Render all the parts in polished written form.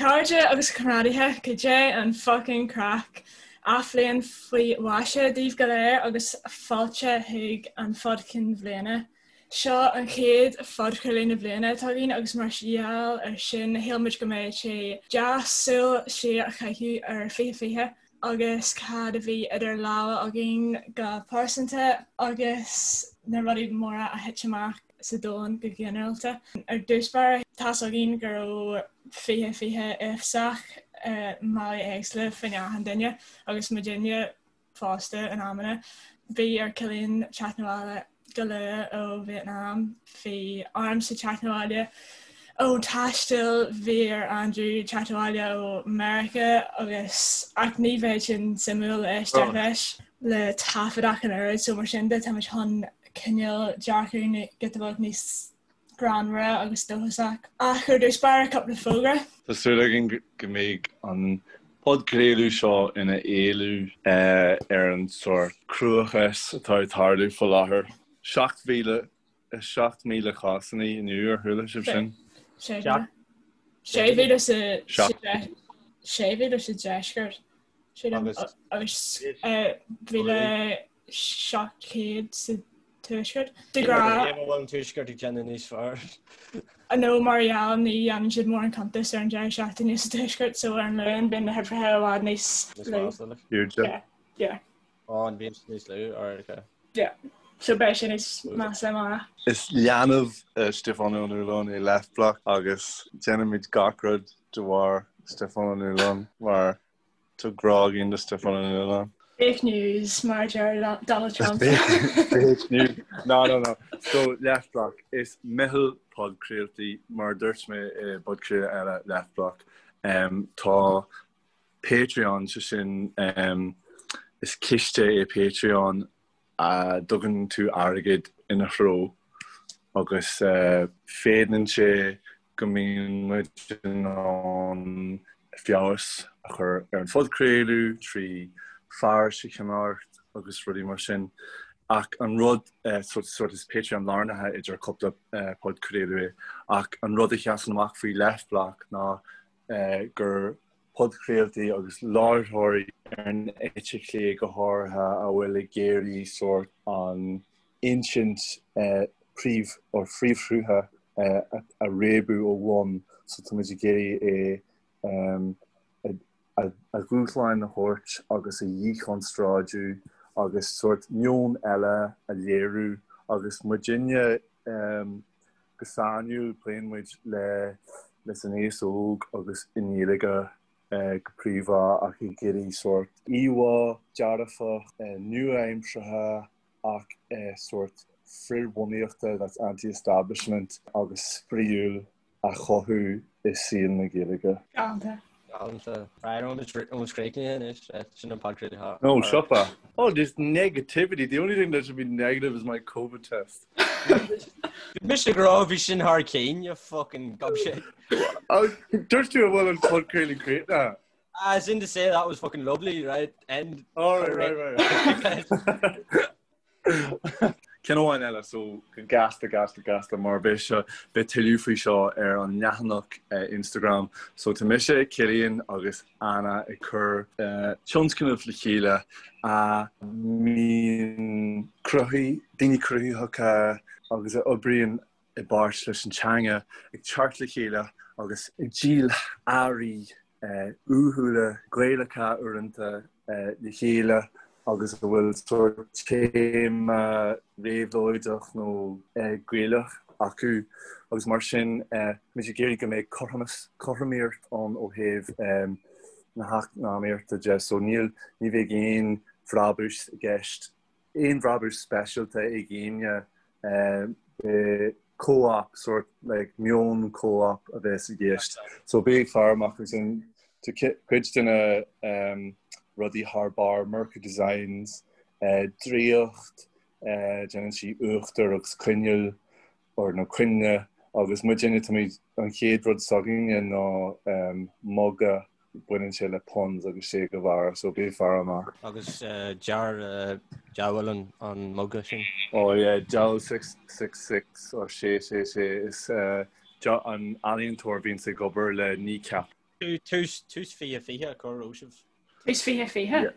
chairde agus a chomrádaithe, cad é an fucking craic? Athbhliain faoi mhaise daoibh go léir agus fáilte chuig an Phod Chinn Bhliana. Seo an chéad phodchraoladh na bliana atá againn agus mar gheall ar sin shíl muid go mbeadh sé deas súil siar a chaitheamh ar 2020 agus cad a bhí idir lámha againn go pearsanta agus na rudaí móra a thit amach sa domhan go ginearálta. Ar dtús báire, tá's againn go raibh 2020 uafásach i mbealaí éagsúla fá choinne achan duine agus muidinne fosta in amanna. Bhí ar Cillian teacht 'na bhaile go luath ó Vietnam, bhí ormsa teacht 'na bhaile ó taisteal, bhí ar Andrew teacht abhaile ó Meiriceá agus ach ní bheidh sin suimiúil le éisteacht leis le taifead ach an oiread so mar sin de táimid chun cineál dearcadh giota beag níos greannmhara agus dóchasach. Ach ar dtús báire, cúpla fógra. Tá súil againn go mbeidh an podchraoladh seo ina éalú ar an sórt cruachás atá ag tarlú faoi láthair. 7,000 7,000 cásanna inniu, ar chuala sibh sin? 6,000 sa deisceart agus 1,700 sa tuaisceart. De ghnáth. Cé bhfuil an tuaisceart ag déanamh níos fearr? Nó mar gheall ní dhéanann siad mórán cuntas ar an deireadh seachtaine sa tuaisceart so ar an Luan bíonn na huimhreacha i bhfad níos lú. Yeah. Yeah. Ó, an bhíonn siad níos lú? Alright, okay. Yeah. So beidh sé níos measa amárach. Is leanbh Stiofán Ó Nualláin é Leftblock agus déanaimid gach rud de bharr Stiofán Ó Nualláin mar Tá grá againn do Stiofán Ó Nualláin. Fake news, mar a deir Donald Trump. Fake news. No, no, no. So, Leftblock, is meitheal podchraoltaí, mar a dúirt mé i bpodchraoladh eile, Leftblock. Um, tá Patreon, sé sin, um, is ciste é Patreon a dtugann tú airgead ina threo agus féadann sé go mbíonn muid in ann feabhas a chur ar an phodchraoladh trí fearais a cheannacht agus rudaí mar sin. Ach an rud, sort is Patreon lárnaithe idir cúpla podchraoladh é, ach an rud a sheasann amach faoi Leftblock ná gur podchraoltaí agus láithreoirí ar an eite chlé go háirithe a bhfuil ag iarraidh sórt an insint príomh or phríomhshrutha a réabadh ó bhun so tá muid ag iarraidh é a dhúshláin a thabhairt agus a dhíchonstráidiú agus sórt meon eile a léiriú agus muidinne Go sainiúil, pléann muid le leis an aos óg agus i nGaeilge go príomha ach ag iarraidh sórt íomhá dearfach, nua-aimseartha ach sórt frithbhunaíochta, that's anti-establishment, agus spraíúil a chothú i saol na Gaeilge. Galánta. Galánta. Right, an bhfuil críochnaithe anois? Sin an podchraoladh. No, siopa. Oh, this negativity. The only thing that should be negative is my COVID test. Bhí mise ag rá bhí sin thar cinn, you fucking gobshite. Dúirt tú an bhfuil an podchraoladh críochnaithe. As in to say that was fucking lovely, right? End. Oh, right, right, right. Ceann amháin eile, so go gasta, gasta, gasta, mar beidh seo, beidh tuilleadh faoi seo ar an leathanach Instagram. So tá mise, Cillian agus Anna ag cur tionscnamh le chéile a mbíonn cruthaí, daoine cruthaitheacha agus a oibríonn i bpáirt leis an teanga ag teacht le chéile agus ag díol earraí uathúla, Gaelacha uaireanta le chéile agus a bhfuil sórt téama réabhlóideach nó Gaelach acu agus mar sin muid ag iarraidh go mbeidh cothromas, cothromaíocht ann ó thaobh na heacnamaíochta de so níl, ní bheidh aon bhrabús i gceist, aon bhrabús speisialta ag éinne Beidh co-op, sort like meon co-op a bheas i gceist. So bí ag faire amach agus an tá cuid de na rudaí thar barr, Merca Designs, Draíocht, déanann sí uachtar agus coinneal or nó coinnle agus muidinne táimid an chéad rud s'againne ná muga baineann sé le puns agus Che Guevara so bí ag faire amach. Agus dear diabhal an muga sin. Oh yeah, Diabhal 666 or 666 is an ealaíontóir a bhíonns ag obair le Kneecap. Tús 2020 cá raibh sibh? Tús 2020?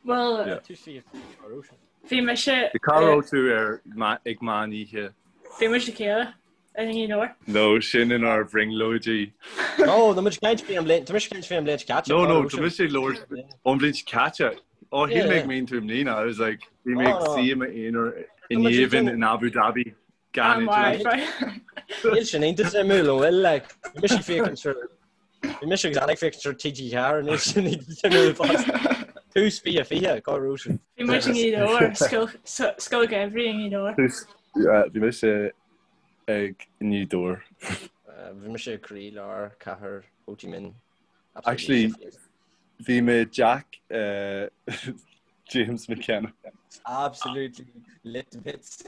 Bhuel, Tús 2020 cá raibh sibh? Bhí mise. Cá raibh tú ar ag meán oíche? Bhí muid le chéile i nGaoth Dobhair. No, sin inár bhrionglóidí. No, tá muid ag caint faoi an bhliain, tá mise ag caint faoi an bhliain seo caite. No, no, tá mise ag labhairt ón bhliain seo caite. Ó, shíl mé go mín tú i mbliana. I was like, bhí mé ag suí i m'aonar in géibheann in Abu Dhabi. Gan idir. Níl sin iontach suimiúil, an bhfuil, like, bhí mise ag féachaint ar, bhí mise agus Anna ag féachaint ar TG4, níl sin iontach suimiúil fosta. Tús 2020, cá raibh sibh? Bhí muid i nGaoth Dobhair, Scoil Gheimhridh i nGaoth Dobhair. Tús, bhí mise ag i nGaoth Dobhair. Bhí mise i gcroílár cathair Ho Chi Minh. Actually, bhí mé i dteach James McKenna. Absolutely lit to bits.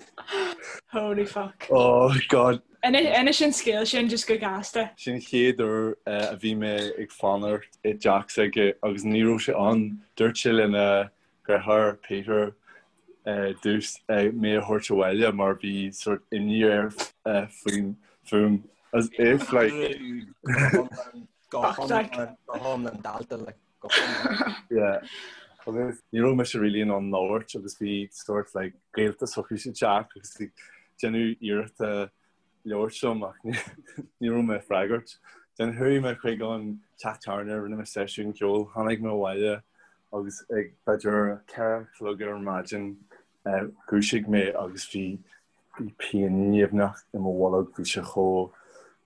Holy fuck. Oh God. Inis an scéal sin just go gasta. Sin chéad uair a bhí mé ag fanacht i dteach s'aige agus ní raibh sé ann. Dúirt sé lena dheartháir Peter dtús mé a thabhairt abhaile mar bhí sort imní air faoin fúm. As if like. Go hiomlán dalta like go hiomlán. Yeah. Agus ní raibh mise really in ann labhairt agus bhí sort like gaolta s'acu sa teach agus ag déanamh iarrachta labhairt liom ach ní raibh mé ag freagairt. Then chuaigh mé chuig an teach tábhairne, rinne mé seisiún ceoil, tháinig mé abhaile agus ag b'fhéidir 4 a chlog ar maidin dhúisigh mé agus bhí Bhí pian nimhneach i mo bholg, bhí sé chomh,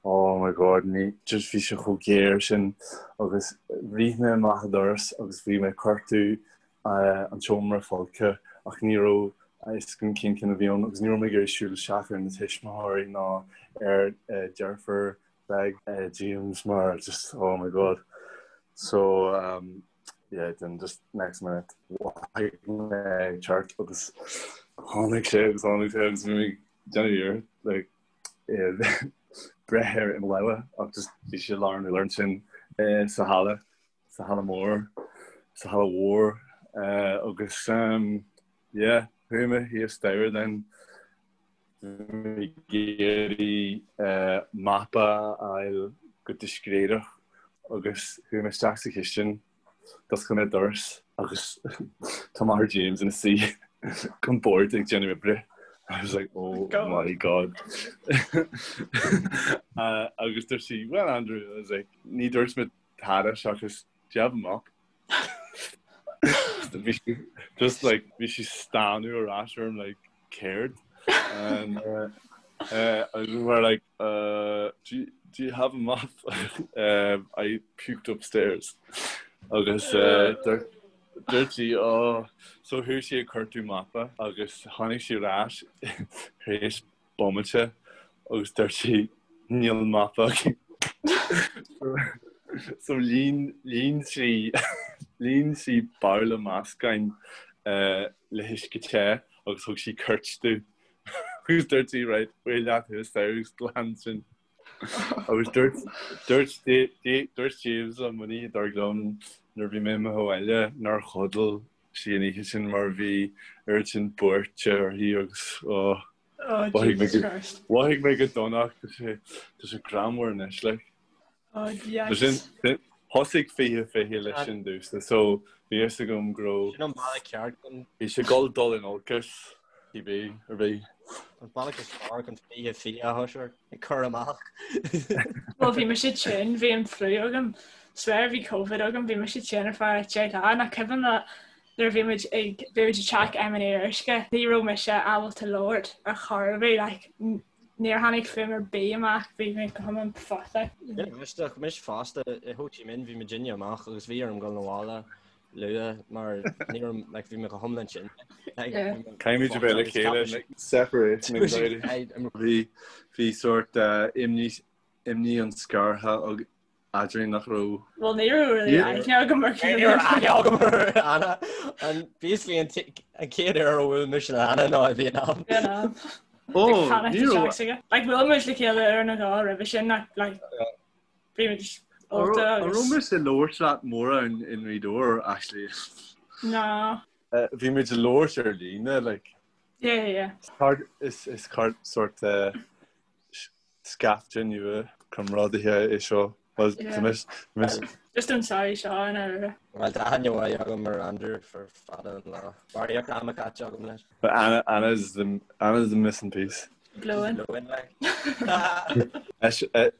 oh my god, ní, just bhí sé chomh géar sin agus rith mé amach an doras agus bhí mé ag cuartú an tseomra folctha ach ní raibh a fhios agam cén ceann a bhí ann agus ní raibh mé ag iarraidh siúl isteach ar na tuismitheoirí ná ar deirfiúr bheag James mar just oh my god. So um, yeah then just next minute mhothaigh mé ag teacht agus tháinig sé agus tháinig sé agus bhí mé ag déanamh iarracht like breith air i mo lámha ach just bhí sé lár an urláir ansin sa halla sa halla mór sa halla mhór agus um, yeah chuaigh mé thíos staighre then ag iarraidh mapa a fháil go discréideach agus chuaigh mé isteach sa chistin, d'oscail mé doras agus tá máthair James ina suí ag an bord ag déanamh oibre. I was like, oh my God. Agus dúirt sí, well Andrew, I was like, ní dúirt mé tada seachas do you have a mop? Bhí sí just like bhí sí stánadh ar ais orm like céard? And uh, uh, I were like uh, do, you, do you have a mop? um, I puked upstairs. Agus uh, dúirt sí oh, so chuaigh sí ag cuartú mapa agus tháinig sí ar ais tar éis bomaite agus dúirt sí níl mapa againn. So líon líon sí líon sí babhla meascáin le huisce te agus thug sí cairt domh agus dúirt sí right faoi leat thuas agus glan sin. Agus dúirt dúirt dúirt James liom an oíche dár gcionn nuair a bhí mé imithe abhaile nár chodail sí an oíche sin mar bhí oiread sin buairte uirthi agus oh, Oh, Jesus Christ. Mhothaigh mé go dona tá sé tá sé greannmhar anois like. Oh, yikes. Sin thosaigh 2020 leis sin domhsa so bhí fhios agam go raibh Sin an bealach ceart chun bhí sé ag dul dul in olcas cibé ar bith. An bealach is fearr chun 2020 a thoiseacht ag cur amach. Well bhí mise tinn, bhí an fliú agam. Swear bhí Covid agam, bhí mise tinn ar feadh 10 lá nach cuimhin leat nuair a bhí muid ag bhí muid i dteach M&A Uisce, ní raibh mise ábalta labhairt ar chor ar bith, like níor tháinig fuaim ar bith amach, bhí mé go hiomlán fucked. Aisteach, mise fosta i Ho Chi Minh bhí muidinne amach agus bhí orm dul abhaile luath mar ní raibh like bhí mé go hiomlán tinn. Caithfimid a bheith le chéile separation anxiety. Bhí bhí sort imní imní an scartha eadrainn nach raibh. Bhuel ní raibh really aithne agam ar Ní raibh aithne agam ar Anna. An basically an chéad uair a bhuail mise le Anna ná i Vietnam. Vietnam. Ó, ní raibh. Like bhuail muid le chéile uair nó dhó roimhe sin ach like bhí muid ólta agus. An raibh mise ag labhairt leat mórán i nGaoth Dobhair actually? No. Bhí muid ag labhairt ar líne like. Yeah, yeah, yeah. Is is sort scaifte nua comrádaithe é seo. Well, tá mise, mise. Just an sorry seo an aire. Well, tá aithne mhaith agam ar Andrew for fada an lá. Barraíocht ama caite agam leis. But Anna, Anna's the, Anna's the missing piece. Glóin. Glóin, like.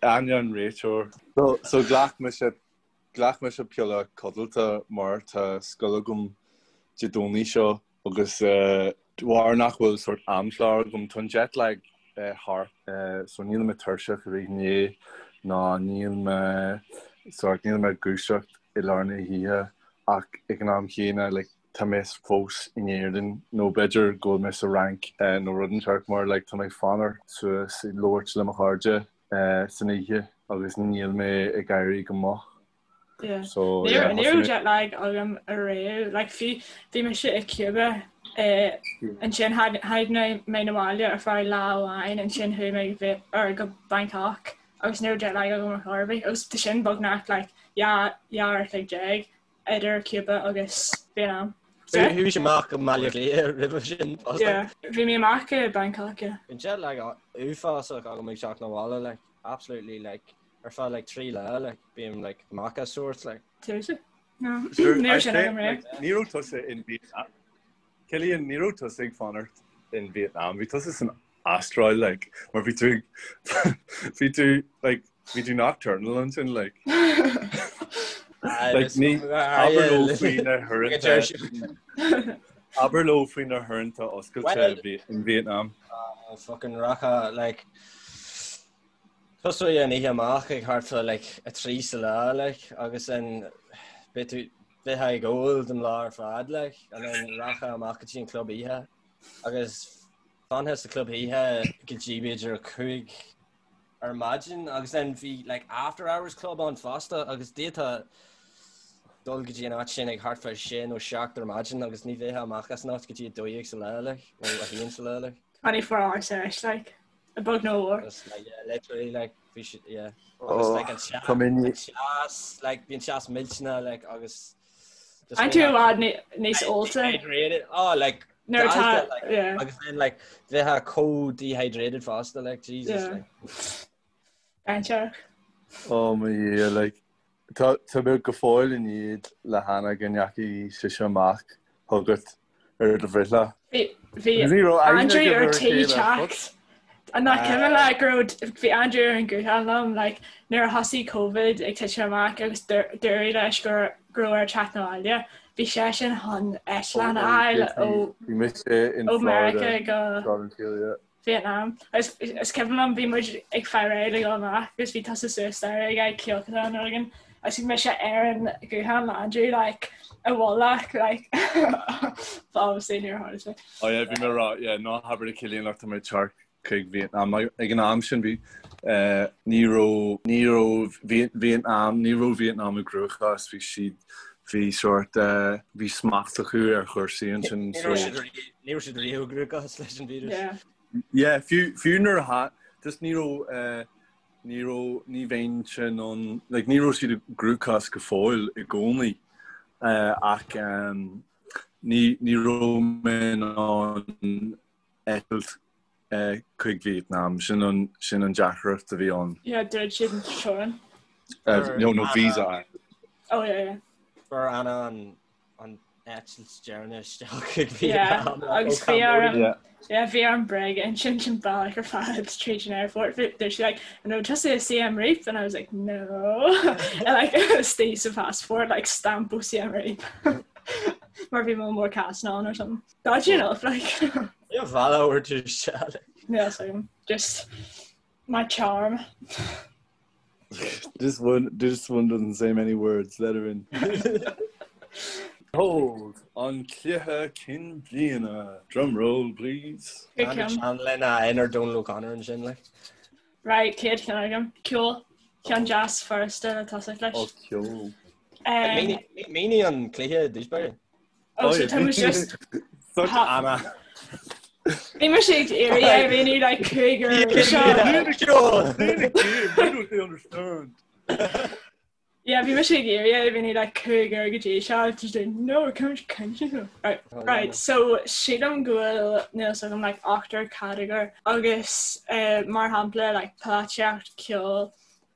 Anna an réiteoir. So, so ghlac mise Ghlac mise piolla codlata mar tá scoil agam Dé Domhnaigh seo agus de bharr nach bhfuil sórt amchlár agam, tá an jet lag thart so níl mé tuirseach i rith an lae ná níl mé sórt níl mé ag dúiseacht i lár na hoíche ach ag an am chéanna like tá mé fós in Éirinn nó b'fhéidir go bhfuil mé sa Fhrainc nó rud inteacht mar like tá mé ag fanacht suas ag labhairt le mo chairde san oíche agus níl mé ag éirí go moch. Yeah. So, Ní yeah, ní raibh jet lag agam ariamh. Like, bhí bhí mise i Cuba eh, ansin tháinig mé na bhaile ar feadh lá amháin ansin chuaigh mé go Viet- or go Bangkok agus ní raibh jet lag agam ar chor ar bith agus tá sin beagnach like 12 uair a chloig idir Cuba agus Vietnam. Chuaigh sé amach go Baile Átha Cliath roimhe sin fosta. Yeah, bhí mé amach i Bangkok, yeah. Bíonn jet lag uafásach agam ag teacht na bhaile, like, absolutely, like, ar feadh, like, 3 lá, like, bím, like, amach as sort, like. Tusa? No. Sure, Ní raibh sin I agam riamh. like, ní raibh tusa in Vietnam. Cillian, ní raibh tusa ag fanacht in Vietnam. Bhí tusa san Astráil, like, mar bhí tú bhí tú like bhí tú nocturnal ansin like. Like ní abair leo faoi na huaireanta abair leo faoi na huaireanta oscailte in Vietnam. Uh, fucking rachfá like tosóidh an oíche amach ag thart fá like 3 sa lá like agus then beidh tú bheifeá ag ól don lá ar fad like and then rachfá amach go dtí an club oíche agus Fanfá sa club oíche go dtí b'fhéidir 5 ar maidin agus then bhí like after hours club ann fosta agus d'fhéadfá dul go dtí an áit sin ag thart fá 6 nó 7 ar maidin agus ní bheifeá amach as an áit go dtí 12 sa lá like nó 1 sa lá like. 24 hour sesh like a bheag nó a mhór. Just like yeah literally like bhí siad yeah agus like an teas Tá mé ní an teas like bhí an teas millteanach like agus An tú i bhfad níos ólta? Dehydrated. Oh, like, Nuair atá, galta, like, yeah. agus then, like, bheifeá chomh dehydrated fosta, like, Jesus, Yeah. like. Dainséarach. Oh mo Dhia, like, tá tá mé go fóill i ndiaidh le hAnna go ndeachaigh sise amach chugat ar do bhreithlá. Bhí bhí Ní raibh aithne Andrew agaibh ar ar a tí chéile, teacht. An nach cuimhin leat go raibh bhí Andrew ar an guthán liom like nuair a thosaigh Covid ag titim amach agus dúradh leis go go raibh air teacht 'na bhaile. Bhí seisean chun eitleán a fháil ó Bhí mise in ó Florida Meiriceá go tráth den tsaol, yeah. Vietnam. Agus is cuimhin liom bhí muid ag faire réidh le dul amach agus bhí tusa suas staighre ag fáil cíocadán nó rud éigin agus bhí mise ar an guthán le Andrew like i bhfolach like but obviously níor tharla sé. Oh yeah, bhí mé ag rá, yeah, ná habair le Cillian like tá mé ag teacht chuig Vietnam. Ag an am sin bhí eh, ní raibh ní raibh Vietnam ní raibh Vietnam i gcruachás, bhí siad bhí sort eh, bhí smacht acu ar chúrsaí ansin Ní so raibh siad ri- ní raibh siad riamh i gcruachás leis an víreas. Yeah. Yeah, fiú fiú nuair a tha just ní raibh eh, ní raibh ní bheinnse in ann like ní raibh siad i gcruachás go fóill i gcónaí eh, ach em, ní ní raibh mé in ann eitilt chuig Vietnam. Sin an sin an deacracht a bhí ann. Yeah, dhruid siad an teorainn. No, no visa. Oh yeah, yeah. Fuair Anna an an eitilt deireanach isteach chuig Yeah, Vietnam agus ó bhí Cambodia. orm Yeah. yeah, bhí orm bréag-insint an bealach ar fad tríd an airport. Bhí dúirt sí like, an raibh tusa i Siem Reap? And I was like, no. And like istigh sa passport like stamp ó Siem Reap. Mar bhí mo mór cas on or something. Dodgy enough like. Yeah, bhealach or tú isteach. Yeah, so just my charm. This one, this one doesn't say many words. Let her in. Hold an cluiche cinn bliana. Drum roll, please. Good ceann. An lena inar Donal O'Connor ansin like. Right, chéad cheann agam. Ceol. Ceann deas furasta le tosach leis. Oh, ceol. Um, Mínigh an cluiche i dtús báire. Oh, so tá muid just Such Anna. Bhí mise ag iarraidh é a mhíniú like cúigear seo. They don't understand. Yeah, bhí mise ag iarraidh é a mhíniú like cúigear go dtí seo just like, no, come on, Right, right, so sílim go bhfuil níl a fhios agam like ochtar catagóir agus uh, mar shampla like polaitíocht, ceol,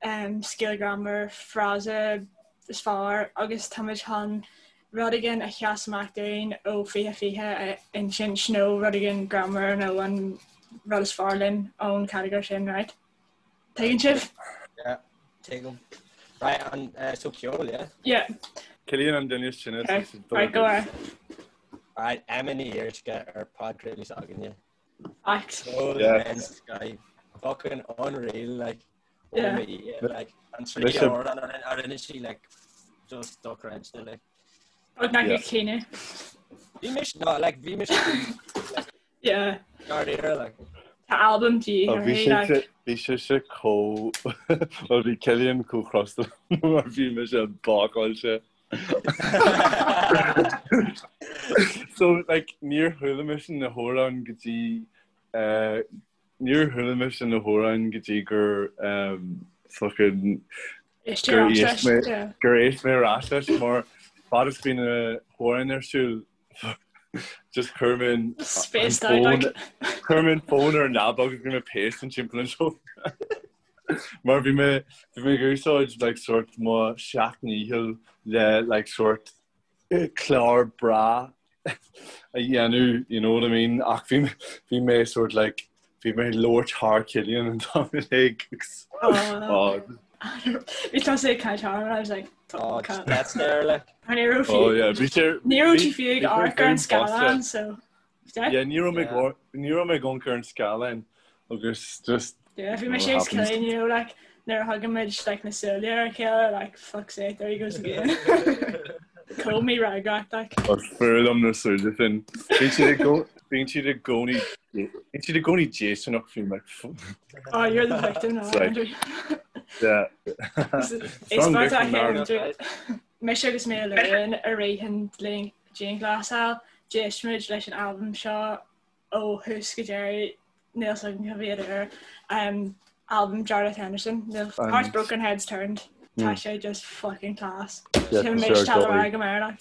Scéal greannmhar, frása is fearr agus táimid chun rud éigin a sheas amach dúinn ó 2020 a insint nó rud éigin greannmhar nó an rud is fearr linn ón chatagóir sin, right? Tuigeann sibh? Yeah, tuigim. Right, an uh, so ceol, yeah? Yeah. Cillian an duine sin is Okay. Right, go ahead. Right, Emma Ní Fhíoruisce ar podchraoladh s'againne. Fact. Ceol Yeah. yeah. Sky. Fucking unreal, like. Yeah. Oh, yeah, like, an trí Mise- amhrán a rinne- a rinne sí, like, just dochreidte, like. Beagnach Yeah. ag caoineadh. Bhí mise, no, like, bhí mise Yeah. dáiríre, like. Tá albam de Oh, bhí uirthi, sé like. bhí sé se chomh well bhí Cillian chomh crosta mar bhí mise bácáilte. So like níor chuala mise na hamhráin go dtí eh, níor chuala mise na hamhráin go dtí gur um, fucking Éist gur ar ais éist mé leis, yeah. gur éist mé ar ais leis mar fad is bhí na hamhráin ar siúl just chuir mé an Spaced out, like. chuir mé an fón ar an leaba agus bhí mé pacing timpeall an seomra. Mar bhí mé bhí mé ag úsáid like sort mo sheacht ndícheall le like sort eh, clár breá a dhéanamh, you know what I mean? Ach bhí bhí mé sort like bhí mé ag labhairt thar Cillian an t-am uilig agus Oh. Bhí tusa ag caint thar I was like, Oh, fuck. just that's there, like. Ní raibh Oh fiú yeah, bhí sé ní raibh bhí tú fiú ag bhí sé amharc ar an féin bosta. scáileán, so Yeah, ní raibh mé Yeah. go ní raibh mé ag amharc ar an scáileán agus just Yeah, bhí you mé know sé what happens. Cillian, you know, like nuair a thugann muid like na súile ar a chéile, like fuck's sake, there he goes again. Chomh mífhreagrach, like. Is fuath liom na súile sin. Bíonn siad i gcó- bíonn siad i gcónaí bíonn siad i gcónaí déistineach faoi like Oh, you're the victim now, It's like Andrew. yeah. Is Strong mar tá victim now. Andrew. Mise agus mé Luan i rith an dianghlasáil, d'éist muid leis an albam seo ó thús go deireadh, níl a fhios agam cá mhéad uair, albam Jarlath Henderson, níl Hearts Broken Heads Turned, tá sé just fucking class. Sin mé sure, tá go rá go Meirleach.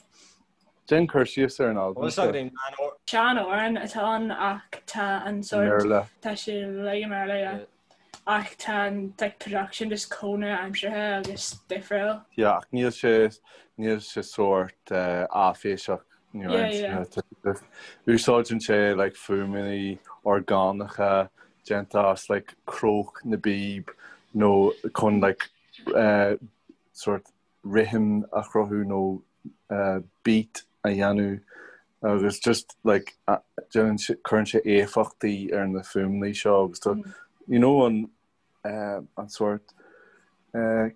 Déan cur síos ar an albam Bhfuil seo. againn an or Sean-amhrán atá ann ach tá an sort mBéarla. tá sé uilig i mBéarla, yeah. Ach tá an like production just chomh nua-aimseartha agus difriúil. Yeah, ach níl sé níl sé sórt áiféiseach Yeah, yeah. Úsáideann sé like fuaimeanna orgánacha déanta as like cróc na bpíob nó chun like sórt rithim a chruthú nó beat a dhéanamh agus just like déanann sé cuireann sé éifeachtaí ar na fuaimeanna seo agus tá you know an an sórt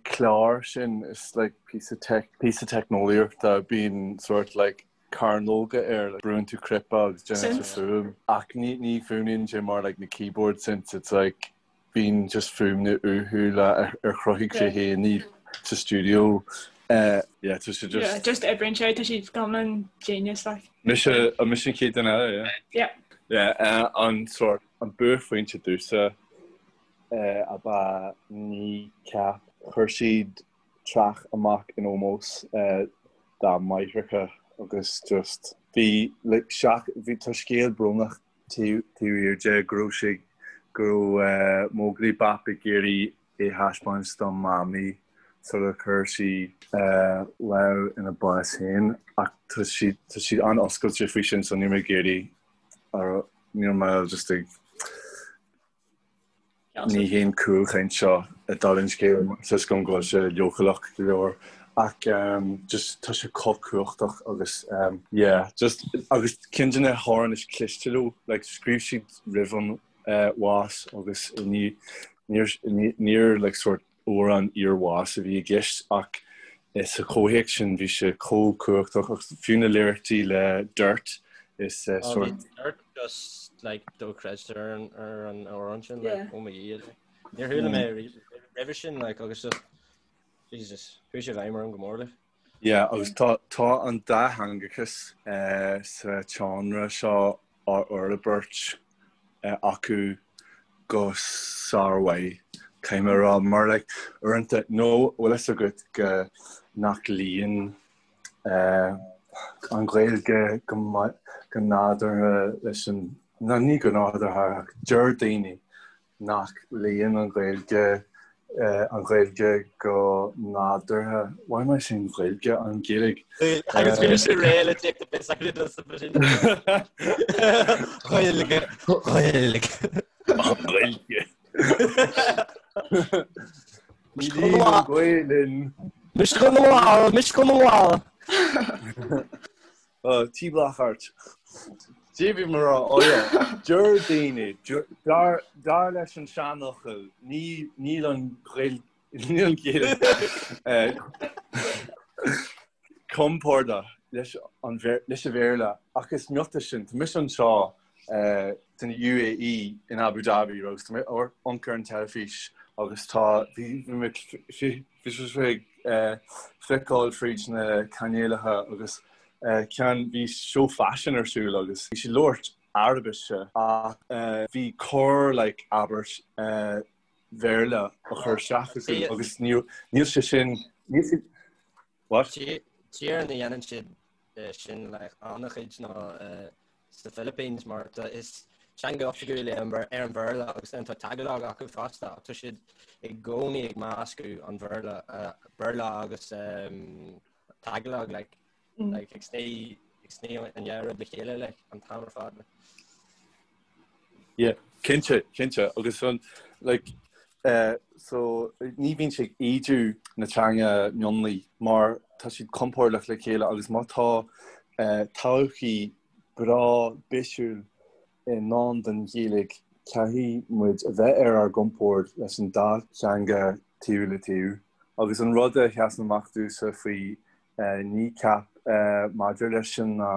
clár sin is like píosa tech píosa teicneolaíochta bíonn sórt like cearnóga air like brúnn tú cnaipe agus déanann sé fuaim ach ní ní fuaimníonn sé mar like na keyboard synths it's like Bíonn just fuaimeanna uathúla ar chruthaigh sé féin iad sa stiúideo. Yeah, tá sé just. Yeah, just oibríonn sé, tá siad go hiomlán genius like. Mise, an mise an chéad duine eile, yeah? Yeah. Yeah, an sórt, an buaicphointe domhsa ab ea Kneecap. Chuir siad traic amach in ómós dá máithreacha agus just bhí like seach, bhí, tá scéal brónach taobh thiar de go raibh sé go raibh Móglaí Bap ag iarraidh é thaispeáint dá mamaí sular chuir sí lámh ina bás féin ach tá sí tá siad an-oscailte faoi sin so níl mé ag iarraidh níl mé just ag Ní haon chúlchaint seo i dtaobh an scéil tá a fhios agam go bhfuil sé leochaileach go leor ach just tá sé chomh cumhachtach agus yeah just agus ceann de na hamhráin is cliste leo like scríobh siad roimh an bhás agus ní níor níor like sort amhrán iarbháis a bhí i gceist ach sa chomhthéacs sin bhí sé chomh cumhachtach agus fiú na liricí le Dirt is sort. Dirt just like dochreidte ar an ar an amhrán sin like oh my god. Níor chuala mé roimhe sin like agus just Jesus chuaigh sé i bhfeidhm orm go mór like. Yeah agus tá tá an dátheangachas sa tseánra seo á fhorbairt acu go sármhaith, caithfidh mé a rá, mar like uaireanta, nó bhfuil fhios agat go nach luíonn an Ghaeilge go maith, go nádúrtha leis an, nó ní go nádúrtha ach deir daoine nach luíonn an Ghaeilge. An Ghaeilge go nádúrtha. Why am I saying Gaeilge? An Ghaeilge. Agus bhí sé réidh le take the piss out of us Gaeilge. Gaeilge. An Ghaeilge. Níl an Ghaelainn. Mise go bhfuil, mise go bhfuil. Tí Blackheart. Cad é bhí mé a rá, oh yeah, deir daoine, dar dar leis an seanfhocal, ní níl an Ghaeilge, níl an Ghaeilge compordach leis an leis an Bhéarla ach is miotas sin, tá mise anseo san UAE in Abu Dhabi agus tá mé ag amharc ar an teilifís agus tá bhí mé bhí sé ag feiceáil fríd na cainéalacha agus ceann bhí seó faisin ar siúl agus bhí siad ag labhairt Araibise ach bhí corr like abairt Bhéarla á chur isteach acu agus níl sé sin níl sé what? Tír ina dhéanann siad sin like an-chuid ná sa Philippines mar tá is teanga oifigiúil é an Bhéarla agus then tá Tagalog acu fosta ach tá siad i gcónaí ag meascadh an Bhéarla Béarla agus Tagalog like like ag sní ag sní an dhá rud le chéile like an t-am ar fad. Yeah, cinnte, cinnte agus an like eh, so ní bhíonn sé ag ídiú na teanga mionlaigh mar tá siad compordach le chéile agus má tá eh, todhchaí breá bisiúil i ndán don Ghaeilge caithfidh muid a bheith ar ár gcompord leis an dá theanga taobh le taobh. Agus an rud a sheasann amach domhsa faoi Kneecap maidir leis sin ná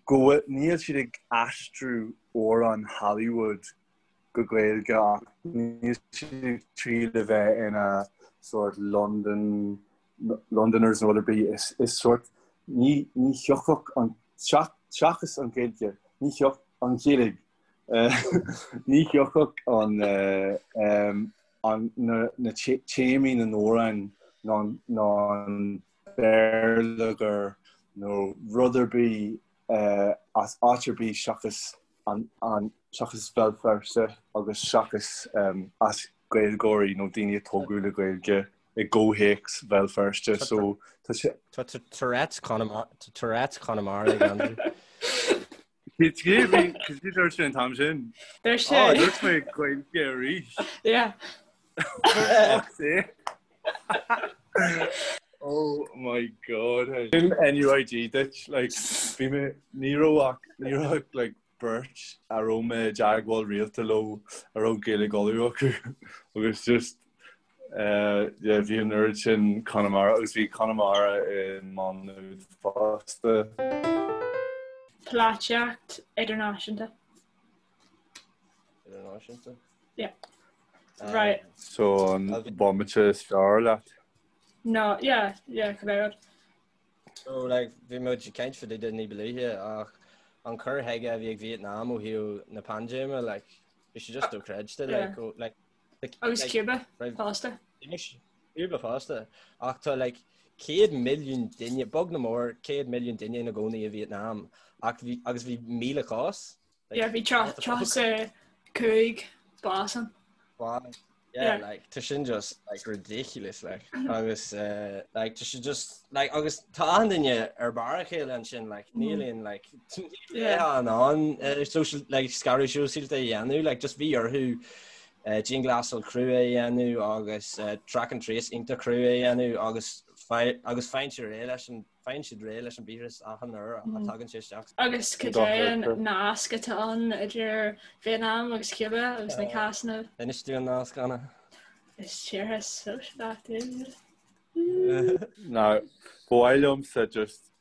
go bhfuil, níl siad ag aistriú amhráin Hollywood go Gaeilge ach níl siad ag triail a bheith ina sórt London, Londoners nó rud ar bith. Is, is sórt, ní, ní thiocfadh an, seachas an Ghaeilge, ní thiocfadh an Ghaeilge, ní thiocfadh an, an, na, na téamaí na n-amhrán ná, ná an béarlagair nó rud ar bith as áit ar bith seachas an, an, seachas Béal Feirste agus seachas as Gaeilgeoirí nó daoine a tógadh le Gaeilge i gcomhthéacs Bhéal Feirste. So tá sé. Tá Tourette's Tourette's Chonamara ag Andrew. Cé bhí dúirt sé an t-am sin? Dúirt sé. Á, dúirt mé Gaeilge arís. Yeah. Fuck's sake. Oh my god. Sin NUIG duit, like, bhí mé, ní raibh ach, ní raibh ach, like, beirt a raibh mé i dteagmháil rialta leo a raibh Gaeilge Uladh acu agus just eh, yeah, bhí an oiread sin Conamara agus bhí Conamara i Má Nuad fosta. Polaitíocht idirnáisiúnta. Idirnáisiúnta? Yeah. Right. So an bomaite is fearr leat? No, yeah, yeah, cibé rud. So like bhí muid ag caint fá dtaobh de ní ba luaithe ach an cur chuige a bhí ag Vietnam ó thaobh na paindéime like bhí sé just dochreidte like go like Agus Cuba fosta. Cuba fosta ach tá like 100 milliún duine beag nó mór 100 milliún duine ina gcónaí i Vietnam ach bhí agus bhí 1,000 cás. Yeah, bhí 35 bás ann. Yeah, like tá sin just like ridiculous like agus uh, like tá sé just like agus tá achan duine ar barr a chéile ansin like níl aon like yeah an an uh, social like scaradh sóisialta a dhéanamh like just bhí orthu uh, dianghlasáil crua a dhéanamh agus uh, track and trace iontach crua a dhéanamh agus agus faigheann siad réidh leis an Faigheann siad réidh leis an víreas achan uair a tagann sé isteach. Agus cad é an nasc atá ann idir Vietnam agus Cuba agus na cásanna? Inis dúinn an nasc, Anna. Is tíortha sóisialach iad. Now, ba mhaith liomsa just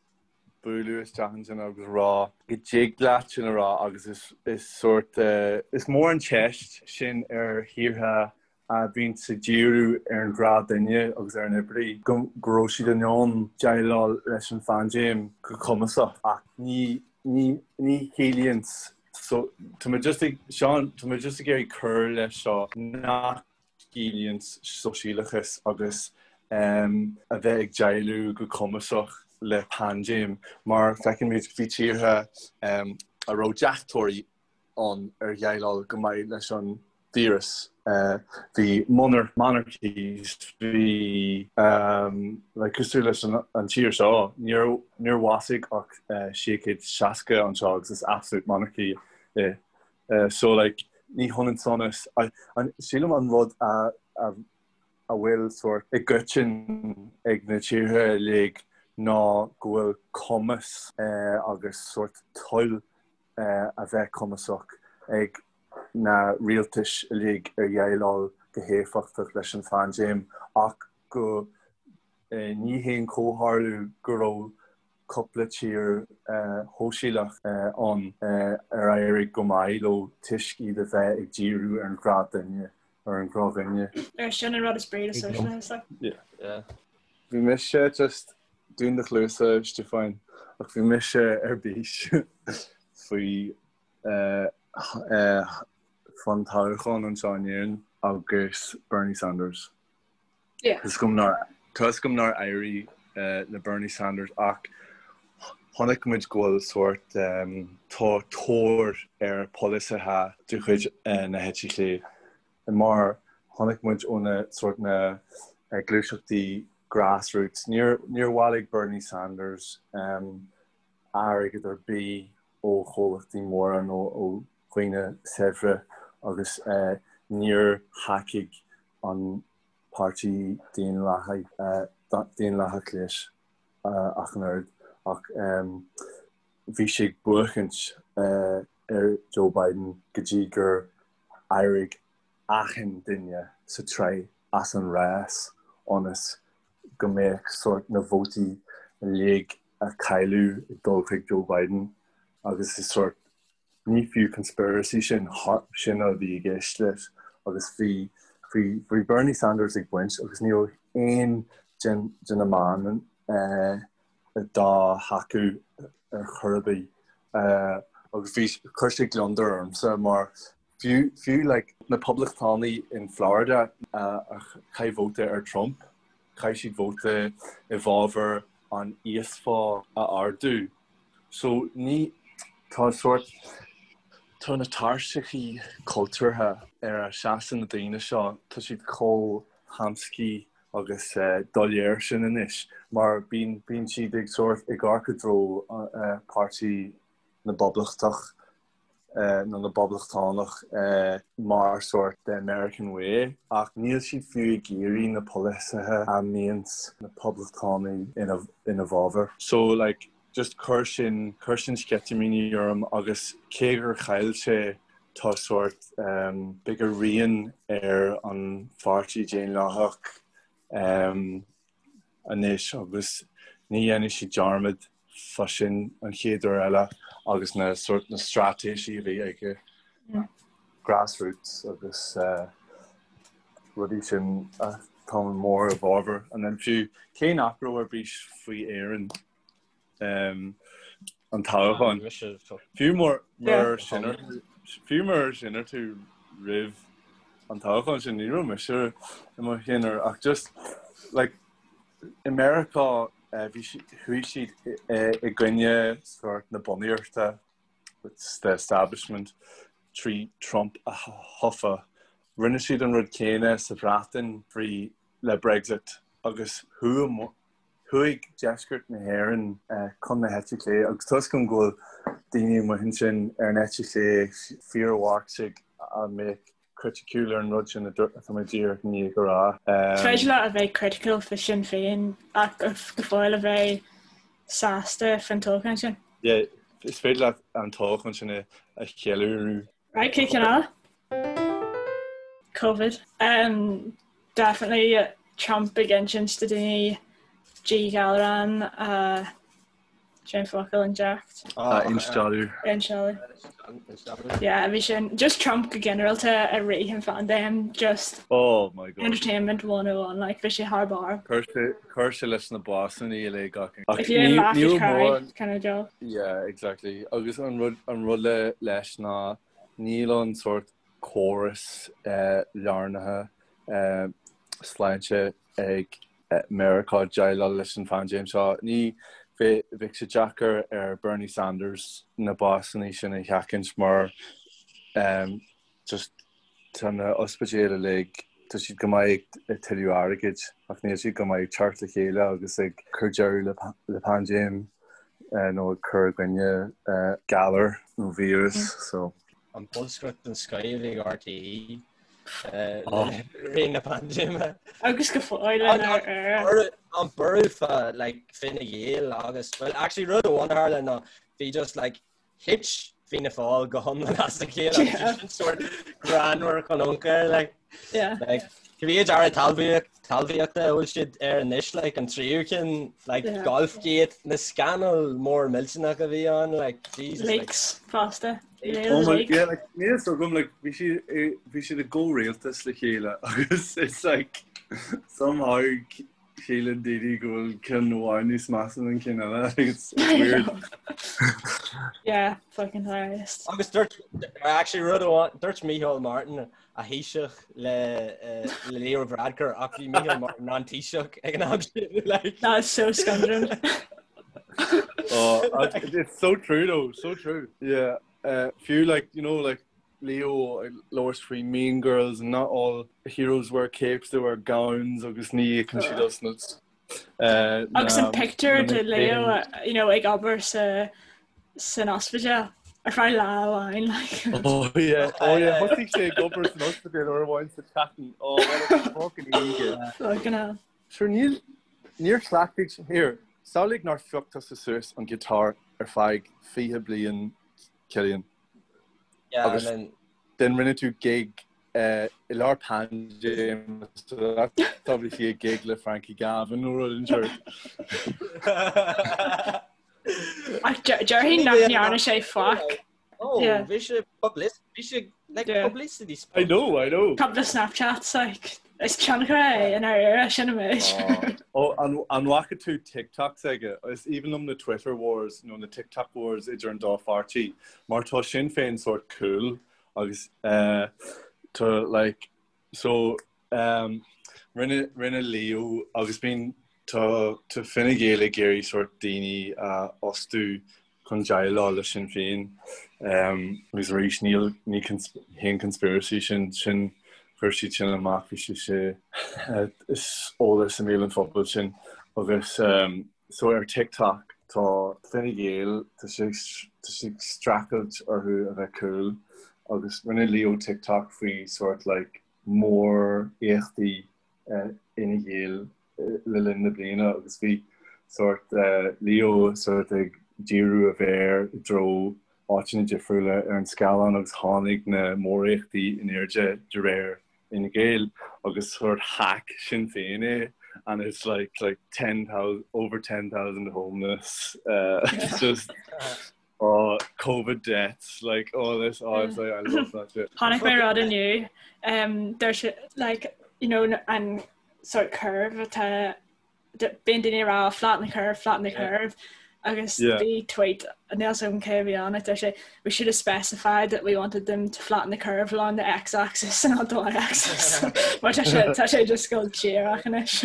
bualadh isteach ansin agus rá go dtig leat sin a rá agus is is sórt is mór an teist sin ar thíortha a bhíonn ag díriú ar an ghnáthdhuine agus ar an oibrí, go raibh siad in ann déileáil leis an phaindéim go cumasach. Ach ní, ní, ní chiallaíonn so, tá mé just ag, Seán, tá mé just ag iarraidh cur leis seo nach gciallaíonn sóisialachas agus a bheith ag déileáil go cumasach le paindéim mar feicimid bhí tíortha a raibh deachtóirí ann ar dhéileáil go maith leis an. Víreas, bhí monarchies, bhí like cosúil leis an tír seo, níor níor bhásaigh ach 660 anseo agus is absolute monarchy é. So like ní hionann sonas, sílim an rud a a a bhfuil sórt i gcoiteann ag na tíortha uilig ná go bhfuil cumas agus sórt toil a bheith cumasach ag na rialtais uilig ar dhéileáil go héifeachtach leis an phaindéim ach go ní haon chomhtharlú go raibh cúpla tír shóisialach ann ar éirigh go maith leo toisc iad a bheith ag díriú ar an ghnáthdhuine, ar an ghnáthdhuine. Ar sin an rud is brí le sóisialachas. Yeah. Bhí mise just dún do chluasa, Stiofáin, ach bhí mise ar bís faoi fán toghchán anseo in Éirinn agus Bernie Sanders. Yeah. Tá 'fhios agam nár éirigh le Bernie Sanders ach chonaic muid go bhfuil sórt tá tóir ar pholasaithe de chuid na heite clé mar chonaic muid ó na sórt na gluaiseachtaí grassroots. Níor níor bhailigh Bernie Sanders airgead ar bith ó chomhlachtaí móra nó ó dhaoine saibhre agus níor thacaigh an Páirtí Daonlathach leis ach an oiread ach bhí sé ag buachaint ar Joe Biden go dtí gur éirigh achan duine sa tsraith as an rás ionas go mbeadh sórt na vótaí uilig a cailleadh ag dul chuig Joe Biden agus is sórt ní fiú conspiracy sin, sin a bhí i gceist leis agus bhí bhí bhí Bernie Sanders ag baint agus ní raibh aon den de na meáin dá thacú ar chor ar bith agus bhí chuir sé gliondar ormsa mar fiú fiú like na poblachtánaigh in Florida a chaith vóta ar Trump chaith siad vóta i bhfabhar an íosphá a ardú. So ní, tá sórt, tá na tairseachaí cultúrtha ar a seasann na daoine seo, tá siad chomh hamscaí agus doiléir sin anois mar bíonn, bíonn siad ag sórt, ag amharc i dtreo páirtí na bPoblachtach nó na bPoblachtánach mar sórt the American way ach níl siad fiú ag iarraidh na polasaithe a mbíonns na Poblachtánaigh ina bhfabhar. So like just chuir sin chuir sin sceitimíní orm agus cé gur chaill sé tá sórt beidh a rian ar an pháirtí Daonlathach anois agus ní dhéanfaidh siad dearmad fá sin an chéad uair eile agus na sórt na straitéisí a bhí aige grassroots agus rudaí sin atá mór i bhfabhar and then fiú cé nach raibh ar bís faoi Éirinn an toghchán fiú mar mar sin fiú mar sin ar tú roimh an toghchán sin ní raibh mise i mo cheannaire ach just like i Meiriceá bhí chuaigh siad i gcoinne sórt na bunaíochta the establishment trí Trump a thofa. Rinne siad an rud céanna sa Bhreatain frí le Brexit agus chuaigh Chuaigh deisceart na hÉireann chun na heite clé agus tá 'fhios agam go bhfuil daoine amuigh ansin ar an eite chlé, fíor-Mharxaigh a mbeadh criticiúil ar an rud sin atá mé díreach i ndiaidh a rá. Is féidir leat a bheith criticiúil faoi Sinn Féin ach go fóill a bheith sásta faoin toghchán sin. Yeah, is féidir leat an toghchán sin a cheiliúradh. Right, cén ceann eile? Covid. Um, definitely Trump ag insint do daoine díghalrán a cén focal inject. Ah, instealladh. Instealladh. Yeah, bhí sin just Trump go ginearálta i rith an phaindéim just Oh my God. entertainment 101 like bhí sé thar barr. Chuir sé chuir sé leis na básanna uilig ach ach If you didn't ní laugh ní you'd raibh cry mórán kind of deal. Yeah, exactly. Agus an rud an rud le leis ná níl an sórt córas lárnaithe sláinte ag Meiriceá déileáil leis an phaindéim seo. Ní bheadh sé deacair ar Bernie Sanders na básanna sin a sheachaint mar just. Tá na ospidéil uilig, tá siad go maith ag tuilleamh airgid ach níl siad go maith ag teacht le chéile agus ag cur deireadh le paindéim nó ag cur i gcoinne galar nó víreas so. An bolscaireacht den scoth a bhí ag RTÉ le ré na paindéime. Agus go fóill in Éire. An borradh fá like Fine Gael agus, well actually rud amháin a tharla ná bhí just like Thit Fianna Fáil go hiomlán as a chéile agus sin sórt greannmhar chun ioncair like. Yeah. Like, cibé aire talmhaíochta a bhfuil siad air anois like an tríú ceann like Yeah. Golfgate na scannail mór millteanach a bhí ann like Jesus like, Leaks fosta. Oh my, yeah, like, níl a fhios agam, like, bhí siad i- bhí siad i gcomhrialtas le chéile agus it's like somehow Síleann daoine go bhfuil ceann amháin níos measa ná an ceann eile. It's weird. Yeah, fucking hilarious. Agus dúirt, actually rud amháin, dúirt Micheál Martin a Thaoiseach le le Leo Varadkar ach bhí Micheál Martin an Taoiseach ag an am sin. Like. That is so scunderin. Oh, it's so true though, so true. Yeah, uh, fiú like, you know, like Leo ag labhairt faoi Mean Girls and not all heroes wear capes, they wear gowns agus ní íocann siad as na Agus an pictiúr de Leo you know, ag obair sa san ospidéal ar feadh lá amháin like. Oh yeah, oh yeah, thosaigh sé ag obair san ospidéal uair amháin sa tseachtain. Oh, what a fucking idiot. Fucking hell. Sure, níl, níor chleachtaigh, here, samhlaigh nár phioc tusa suas an guitar ar feadh 20 bliain, Cillian. Agus then rinne tú gig i lár paindéim so that's obviously a gig le Frankie Gavin nó rud inteacht. Ach déarfainn nach ndearna sé faic. Oh, bhí sé publicity, bhí sé like publicity I know, I know. Couple of Snapchats like is tionchar é in ár era sin an méid. Ó, an bhfaca tú TikToks aige? Is aoibhinn liom na Twitter wars nó na TikTok wars idir an dá pháirtí mar tá Sinn Féin sórt cool agus tá like so um, rinne rinne Leo agus bíonn tá tá Fine Gael ag iarraidh sórt daoine a fhostú chun déileáil le Sinn Féin agus arís níl ní haon conspiracy sin sin chuir siad sin amach bhí sé sé is eolas i mbéal an phobail sin agus so ar TikTok tá Fine Gael tá sé tá sé ag streachailt orthu a bheith cool agus rinne Leo TikTok faoi sort like mór-éachtaí Fhine Gael le linn na bliana agus bhí sórt Leo sórt ag díriú a mhéar i dtreo áiteanna difriúla ar an scáileán agus tháinig na móréachtaí in airde de réir Fhine Gael agus sórt hack Sinn Féin é and it's like like 10,000 over 10,000 homeless uh, it's just oh COVID deaths like all this oh it's like I love that shit. Chonaic mé rud inniu um, there's like you know an sort curve atá bíonn daoine ag rá flatten the curve, flatten the curve agus bhí tweet níl a fhios agam cé a bhí ann deir sé we should have specified that we wanted them to flatten the curve along the x-axis and not the y-axis. Mar tá sé tá sé just go díreach anois.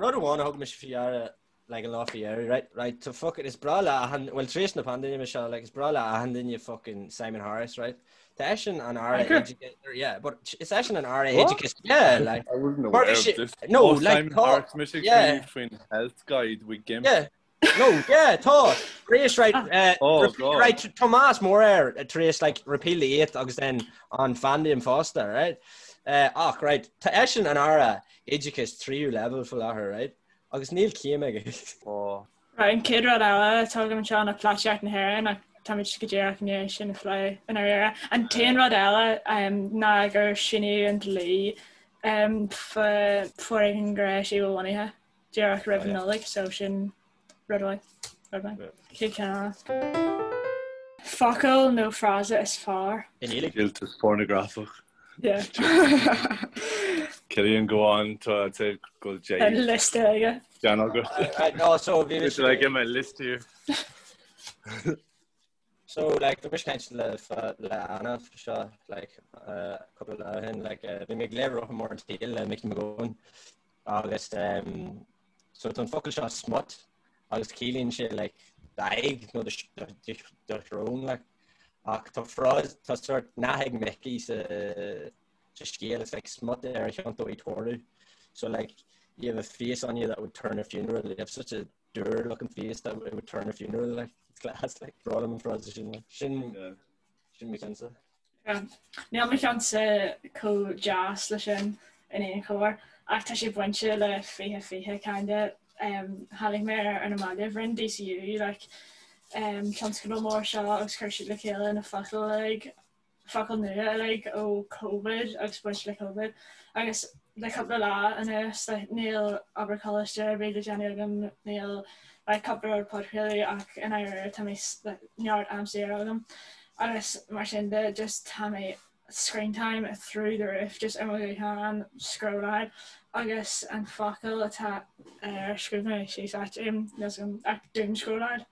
Rud amháin a thug mise faoi deara like an lá faoi dheireadh, right, right, so fuck it, is breá le achan, well tar éis na paindéime seo, like is breá le achan duine fucking Simon Harris, right? Tá eisean an Aire Oideachais, yeah, but is eisean an Aire Oideachais, yeah, like. I wasn't aware of this. No, oh, like, Simon Harris, mise yeah. faoin health guide with GIMP. Yeah. No, yeah, tá. Tar éis, right, uh, oh, repeal, God. right, Tomás Moorer, uh, tar éis, like, repeal the eighth agus then an phaindéim fosta, right? Uh, ach, right, tá eisean an Aire Oideachais tríú leibhéal faoi láthair, right? Agus níl céim aige. Right, an chéad rud eile atá agam anseo ná polaitíocht na hÉireann ach táimid go díreach i ndiaidh sin a phlé i ndáiríre. An t-aon rud eile ná gur síníodh an dlí fá foréigean gnéis-bhunaithe díreach roimh an Nollaig so sin rud mhaith. Rud mhaith. Chéad cheann eile. Focal nó frása is fearr? I nGaeilge. Díoltas pornagrafach. Yeah. Cillian go on tá sé go Tá liosta aige. Dean agat. No, so bhí It's like in my list here. So like bhí mise ag caint le le Anna faoi seo like uh, cúpla lá ó shin like uh, bhí mé ag léamh Rotha Mór an tSaoil le Mickey Mac Gabhann agus um, so tá an focal seo smut agus ciallaíonn sé like d'aghaidh nó do shrón like. Ach tá frása, tá sort nath ag Mickey sa sa scéal, it's like smut ar a chiontó í toradh. So like you have a face on you that would turn a funeral, you have such a dour looking face that it would turn a funeral like it's class like breá liom an frása sin like sin yeah. sin mo cheannsa. Níl mo cheannsa chomh deas le sin in aon chor ach tá sé bainte le 2020 kinda. Tháinig mé air ar na mallaibh, rinne DCU like tionscadal mór seo agus chuir siad le chéile na focail uilig, focail nua uilig ó Covid agus bainte le Covid agus le cúpla lá anuas like níl obair choláiste ar bith le déanamh agam, níl like cúpla rud podchraoladh ach i ndáiríre tá mé like neart am saor agam agus mar sin de just tá mé screen time through the roof just ar mo ghuthán scrolláil agus an focal atá ar scríobh mé síos áit um, ach doom scrolláil.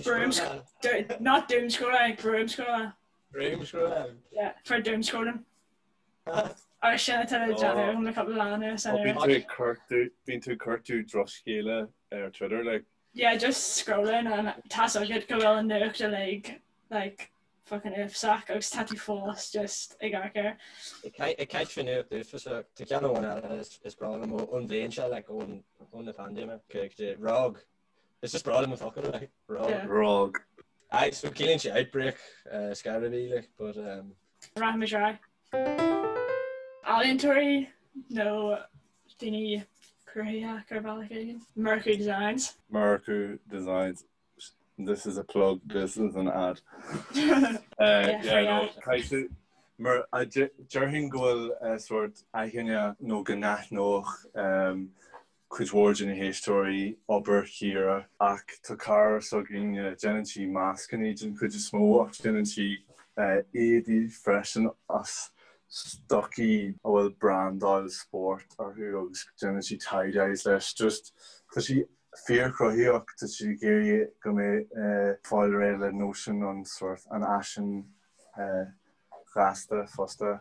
Broom not doom scrolláil, broom scrolláil. Broom scrolláil. Yeah, for doom scrolling. Agus sin atá le déanamh agam le cúpla lá anuas. Bíonn tú ag cuartú bíonn tú ag cuartú drochscéala ar Twitter like. Yeah, just scrolling and tá's agat go bhfuil an nuacht uilig like fucking uafásach agus tá tú fós just ag amharc air. Ag caint faoi nuacht uafásach, tá ceann amháin eile is breá liom ón bhliain seo like ón ón na paindéime, ROG. Is just breá liom an focal like ROG. Yeah. ROG. Aye, so ciallaíonn sé outbreak uh, scar a bhí like, but um, Rachaimid ar aghaidh. Ealaíontóirí nó daoine cruthaitheacha ar bhealach éigin. Murchú Designs. Murchú Designs. This is a plug, this is an ad. Uh, yeah, no, caithfidh- Mar a de- déarfainn go bhfuil uh, sort aithne nó go n-aithneodh um, cuid mhór de na héisteoirí obair Chiara ach tá cara s'againne, déanann sí mascannaí den chuid is mó ach déanann sí éadaí freisin as stocaí a bhfuil brandáil spóirt orthu agus déanann sí tie-dyes leis. Just tá sí fíorchruthaitheach, tá sí ag iarraidh go mbeidh fáil réidh le nóisean an sórt an fhaisin ghasta fosta.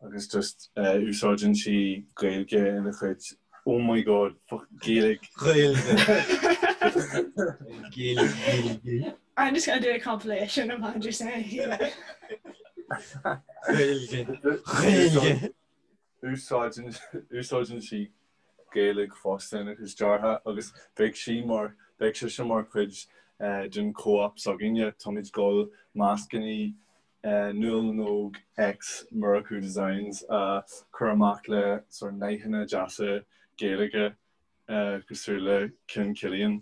agus just úsáideann sí Gaeilge ina chuid oh my god fuck Gaeilge. Gaeilge. Gaeilge Gaeilge. I'm just gonna do a compilation of Andrew saying Gaeilge. Gaeilge. Úsáideann úsáideann sí Gaeilge fosta ina cuid deartha agus beidh sí mar beidh sise mar chuid den co-op s'againne. Táimid ag dul mascannaí Nuala na nÓg X Murchú Designs a chur amach le sort nathanna deasa Gaeilge cosúil le cinn Cillian.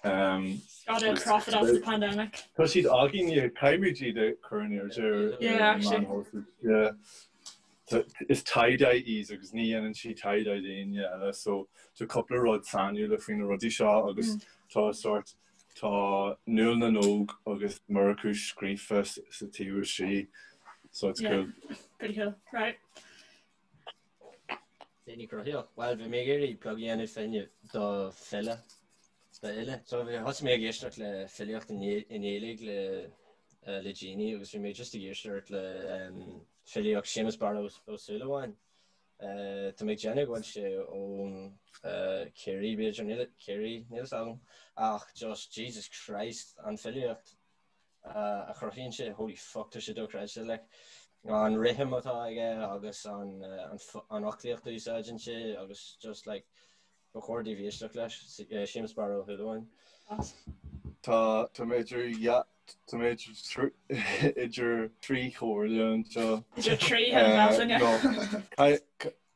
Gotta profit off the pandemic. Tá siad againne, caithfimid iad a chur in airde ar Yeah, actually. na meáin Yeah. Is tie-dye í agus ní dhéanann sí tie-dye d'éinne eile so tá cúpla rud sainiúla faoi na rudaí seo agus tá sort Tá Nuala na nÓg agus Murchú scríofa sa taobh istigh, so it's cool. Yeah, pretty cool. Right. Daoine cruthaitheach. Bhuel, bhí mé ag iarraidh plug a dhéanamh féin do file. Do fhile. So bhí thosaigh mé ag éisteacht le filíocht i nGaeilge le le déanaí agus bhí mé just ag éisteacht le filíocht Séamus Barra Ó Súilleabháin. Tá mé ag déanamh go bhfuil sé ón Ciarraí, b'fhéidir, níl Ciarraí, níl a fhios agam, ach just Jesus Christ an filíocht a chruthaíonn sé, holy fuck tá sé dochreidte, like an rithim atá aige agus an an fhoclaíocht a úsáideann sé agus just like ba chóir daoibh éisteacht leis, Séamus Barra Ó Súilleabháin. Tá tá mé idir Tá mé idir thrí chomhairle anseo. Idir thrí thine Bealtaine.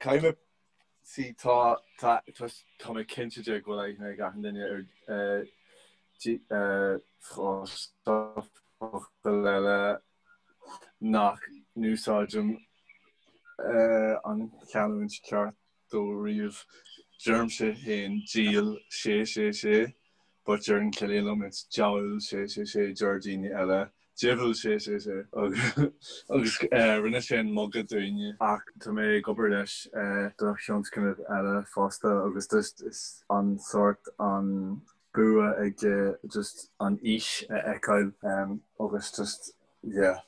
Caithfidh mé see tá tá tá mé cinnte de go bhfuil aithne ag achan duine ar focal eile nach n-úsáidim an chanúint ceart dó riamh. Deirimse féin diabhal sé sé sé. But deireann Cillian liom it's diabhal sé sé sé deir daoine eile diabhal sé sé sé agus rinne sé an muga dúinne. Ach tá mé ag obair leis do thionscnamh eile fosta agus just is an sórt an bua aige just an fhís a fheiceáil agus just yeah.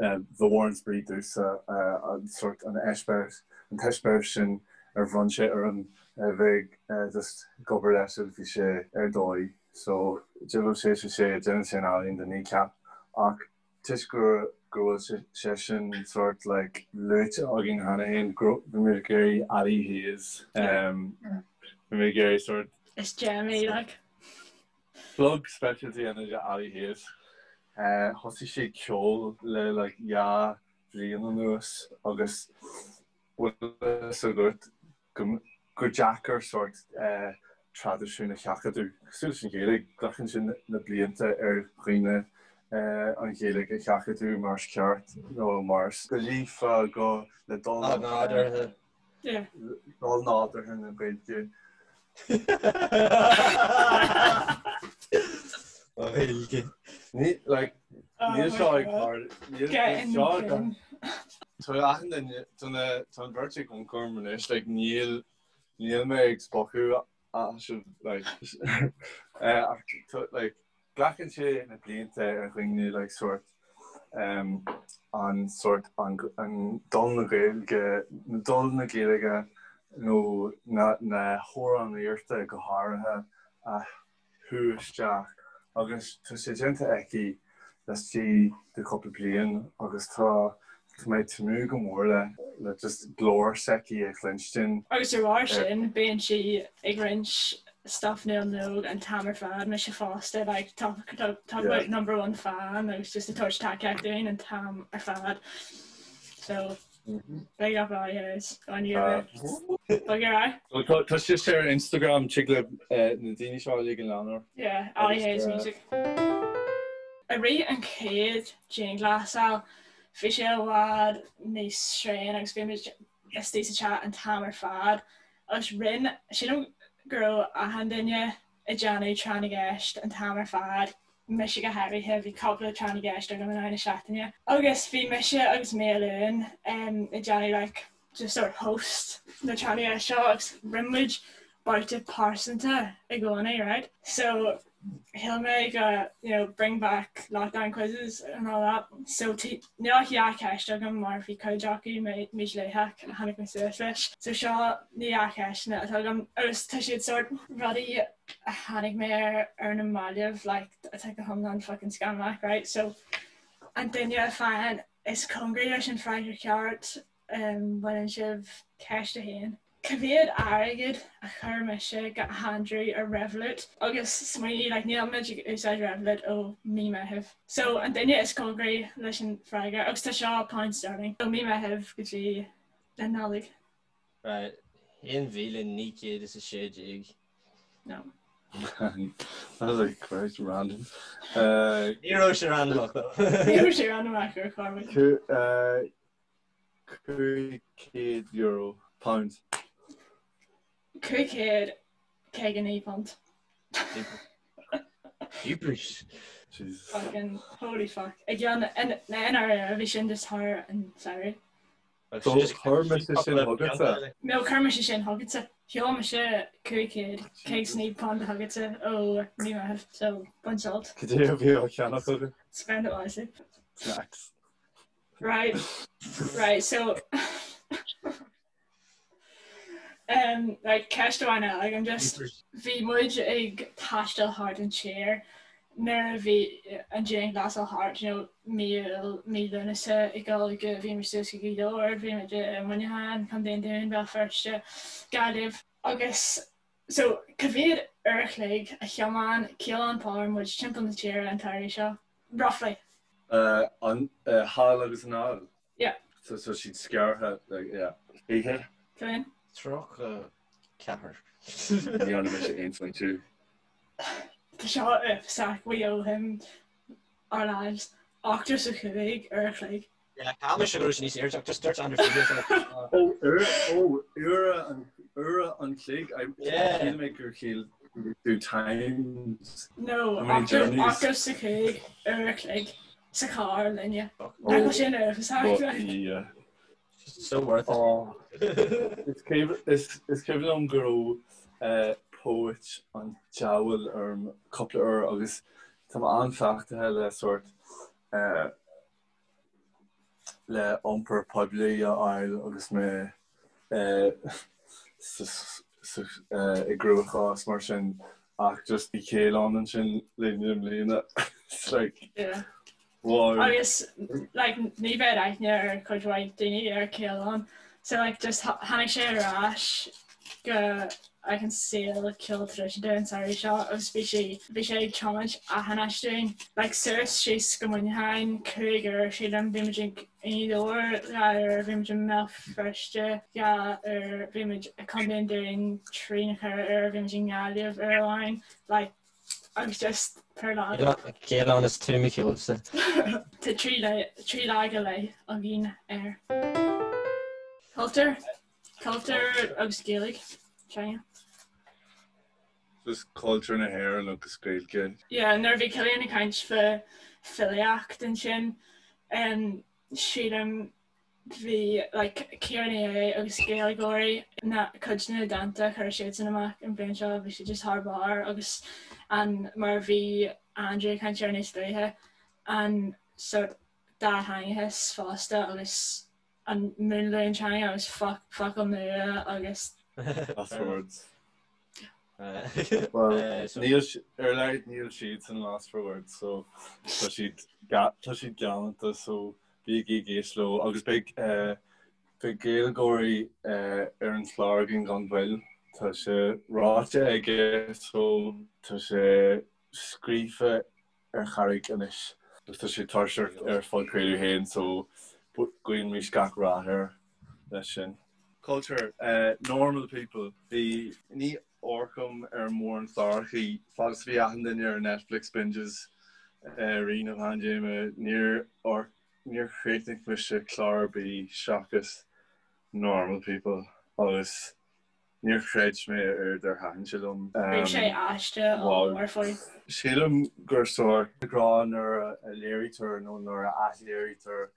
Ba mhór an spraoi domhsa an sórt an eispéireas, an t-eispéireas sin ar bhronn sé orm a bheith just ag obair leis agus bhí sé ar dóigh. So, diabhal sé sé sé, déanann sé an ealaín do Kneecap. Ach toisc go go bhfuil sé sin sort like luaite againn cheana féin, bhí muid ag iarraidh Ali Hayes, bhí muid ag iarraidh sort. Is gem í like. Plug speisialta a dhéanamh de Ali Hayes. Thosaigh sí ag ceol le like 2 bhliain anuas agus bhfuil a fhios agat gur deacair sórt traidisiún a sheachadadh. Cosúil leis an Ghaeilge, glacann sé na blianta ar dhaoine an Ghaeilge a sheachadadh mar is ceart nó mar is go líofa, go le dul nádúrtha. Dul nádúrtha na Gaeilge. Gaeilge. Ní, like, níl seo ag níl seo ag Tá achan duine, tá na, tá an bheirt ag amharc orm anois, like, níl, níl mé ag spochadh as like, ach tá, like, glacann sé na blianta ar dhaoine, like, sórt, um, an sórt, an, an dul na Gaeilge, dul na Gaeilge nó na, na hamhránaíochta go háirithe a shú isteach agus tá sé déanta aici laistigh de chúpla bliain agus tá tá mé ag tnúth go mór le le just glór s'aici a chluinstin. Agus de bharr sin bíonn sí ag roinnt stuff Niall Nóg an t-am ar fad, mise fosta, like talk talk about number one fan agus just ag tabhairt tacaíocht dúinn an t-am ar fad. So Big up Ali Hayes on you. Bug your eye. Tá sé ar Instagram tig le na daoine seo uilig a leanúint. Yeah, Ali Hayes Music. I rith an chéad dianghlasáil, bhí sé i bhfad níos tréine agus bhí muid istigh sa teach an t-am ar fad agus rinne, sílim go raibh achan duine ag déanamh tráth na gceist an t-am ar fad, mise go háirithe, bhí cúpla tráth na gceist agam in aghaidh na seachtaine. Agus bhí mise agus Maolúin ag déanamh like just sort of host na tráth na gceist seo agus rinne muid babhta pearsanta i gcónaí, right? So shíl mé go, you know, bring back lockdown quizzes and all that. So níl ach dhá cheist agam mar bhí cuid acu mídhleathach a tháinig mé suas leis. So seo na dhá cheisteanna atá agam agus tá siad sort rudaí a tháinig mé air ar na mallaibh like atá go hiomlán fucking scannalach right so an duine a faigheann is cóngaraí leis an freagra ceart um, baineann sibh ceist a haon. Cá mhéad airgead a chuir mise go Andrew ar Revolut agus smaoinigh like níl muid ag úsáid Revolut ó mí Meitheamh. So an duine is cóngaraí leis an freagra agus tá seo pound sterling ó mí Meitheamh go dtí an Nollaig. Right, 1916. No. That was like quite random. Ní raibh sé randamach though. Ní raibh sé randamach ar chor ar bith. €500 pound. £559. Jeepers. Jesus. Fucking holy fuck. I gceann na NRA bhí sin just thar an samhradh. So chuir mise sin chugatsa. No, chuir mise sin chugatsa. Sheol mise £559 chugatsa ó mí Meitheamh, so bain sult. Cad é a bhí á cheannach agat? Spend it wisely. Snacks. Right, right, so um, right, ceist amháin eile agam just bhí muid ag taisteal thart an tír nuair a bhí an dianghlasáil thart, you know, mí Iúil, mí Lúnasa ag dul go bhí muid suas go Gaoth Dobhair, bhí muid i Muineachán, Contae an Dúin, Béal Feirste, Gaillimh agus so cá mhéad uair a chloig a thiomáin Caolán Power muid timpeall na tíre an t-samhradh seo? Roughly. An thall agus anall? Yeah. So so siad scartha like yeah. Oíche? Cén? 34. Ní dhearna mise aon smaointiú. Tá seo uafásach, we owe him our lives. 85 uair a chloig. Yeah, cheap mise go raibh sé níos airde ach just dúirt Andrew figures like Ó, uair, ó, uair an, uair an chloig, I, Yeah. shíl mé gur chiall tú times. No, How many journeys? 85 uair a chloig sa charr linne. Nach bhfuil sin uafásach, But, like. yeah. So worth it. Oh. Is cuimhin is, is cuimhin liom go raibh eh, póit an diabhail orm cúpla uair agus tá mé an-chleachtaithe le sórt eh, le iompar poiblí a fháil agus mé i gcruachás mar sin ach just bhí Caolán ansin linn i mbliana. It's like Yeah. Wow. Agus like ní bheadh aithne ar chuid mhaith daoine ar Caolán. So like just tháinig sé ar ais go like an saol ceol traidisiúnta an samhradh seo agus bhí sé bhí sé ag tiomáint achan áit dúinn. Like suas síos go Muineachán 5 uair sílim bhí muid ag i nGaoth Dobhair 2 uair bhí muid i mBéal Feirste 2 uair bhí muid i Contae an Dúin 3 nó 4 uair bhí muid i nGaillimh uair amháin like agus just per lá. Caolán is tú mo cheolsa. Tá 3 lá go leith againn air. Cultúr, cultúr agus Gaeilge, teanga. Just cultúr na hÉireann agus Gaeilge. Yeah, nuair a bhí Cillian ag caint fá filíocht ansin, sílim bhí like Ciara Ní É agus Gaeilgeoirí na cuid de na dánta a chuir siadsan amach an bhliain seo bhí siad just thar barr agus an mar a bhí Andrew ag caint air níos luaithe an sort dátheangachas fosta agus an múnlú an teanga agus focail nua agus Lost for words. Well, níl ar a laghad níl siadsan lost for words so tá siad tá siad galánta so bígí ag éisteacht leo agus beidh beidh Gaeilgeoirí ar an chlár againn gan mhoill. Tá sé ráite aige so tá sé scríofa ar charraig anois agus tá sé tuirseach ar phodchraoladh féin so guímis gach rath air leis sin. Culture, normal people, bhí, ní amharcaim ar mórán clárachaí fad is a bhí achan duine ar Netflix binges i rith na paindéime, níor amharc, níor chríochnaigh mise clár ar bith seachas Normal People agus Níor chreid mé a oiread ar thaitin sé liom. Bhí sé aiste ollmhór faoi. Sílim gur sórt grá nuair a léirítear nó nuair a athléirítear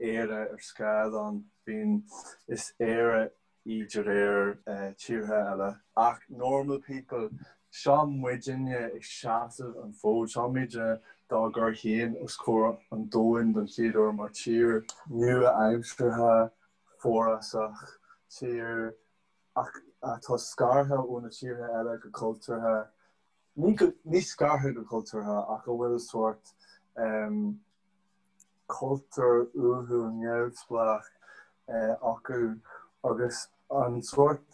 Éire ar scáileán, bíonn, is Éire í de réir tíortha eile. Ach normal people, seo muidinne ag seasamh an fód, seo muidinne dá gcur féin os comhair an domhain don chéad uair mar tír nua-aimseartha, forásach, tír ach atá scartha ó na tíortha eile go cultúrtha, ní go, ní scartha go cultúrtha ach a bhfuil sórt cultúr uathúil neamhspleách acu agus an sórt,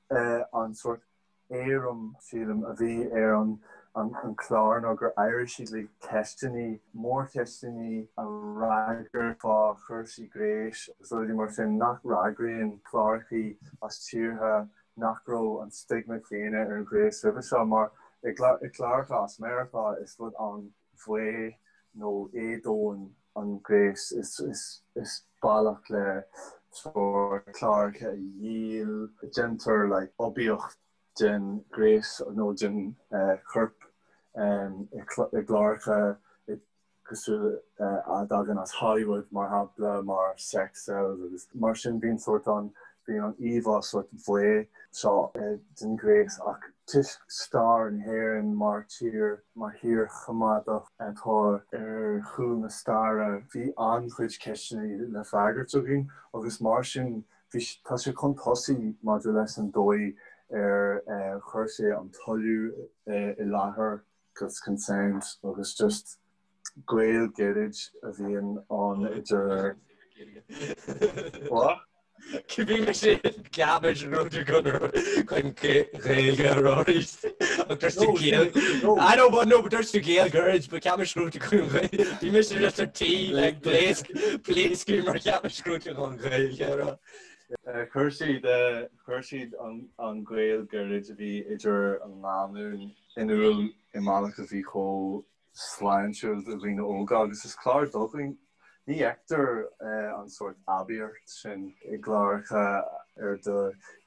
an sórt éirim, sílim, a bhí ar an chlár ná gur éirigh siad le ceisteanna, mórcheisteanna a fhreagairt fá chúrsaí gnéis agus rudaí mar sin nach bhfreagraíonn clárachaí as tíortha nach raibh an stigma céanna ar an ghnéas roimhe seo mar i gcláracha as Meiriceá is rud an-bhaoth nó éadomhain an gnéas is bealach le sórt cláracha a dhíol. Déantar like oibiacht den ghnéas nó den chorp i gcláracha cosúil a dtagann as Hollywood mar shampla mar Sex Sells agus mar sin bíonn sórt an bíonn an íomhá sórt bhaoth seo den ghnéas ach toisc stair na hÉireann mar tír mar thír choimeádach atá ar chúl na staire bhí an-chuid ceisteanna le freagairt againn agus mar sin bhí tá sé chun tosaigh maidir leis an dóigh ar chuir sé an toiliú i láthair agus consent agus just gaol gairid a bhíonn ann idir What? Bhí mise ceapaim go raibh tú chun Gaeilge a rá arís ach dúirt tú Gael I know but no but dúirt tú Gael gairid but ceapaim go raibh tú chun Gaeilge Bhí mise just ar tí like pléasc pléascadh mar ceapaim go raibh tú chun Gaeilge a rá. Chuir siad chuir siad an gaol gairid a bhí idir an lánúin in iúl i mbealach a bhí chomh sláintiúil do dhaoine óga agus is clár do dhaoine. Ní fheictear an sórt aibíocht sin i gcláracha ar do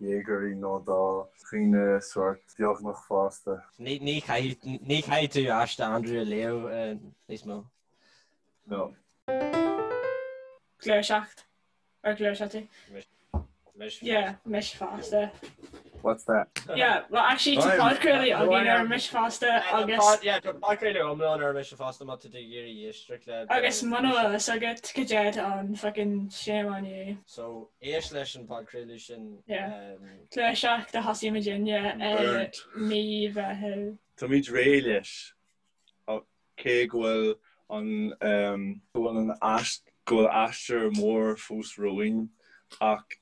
dhéagóirí nó do dhaoine sórt beagnach fásta. Ní chaithfidh tú aiste Andrew a léamh níos mó. No. Gluaiseacht. Ar ghluais tú? Mise. Yeah, mise fosta. What's that? Yeah, well actually tá podchraoladh againn ar Mise Fosta agus. Yeah, tá podchraoladh iomlán ar Mise Fosta má tá tú ag iarraidh éisteacht le. Agus muna bhfuil fhios agat cad é an fucking shame on you. So, éist leis an podchraoladh sin. Yeah. Gluaiseacht a thosaigh muidinne i mí Mheithimh. Táimid réidh leis, cé go bhfuil. An go bhfuil an go bhfuil aistear mór fós romhainn ach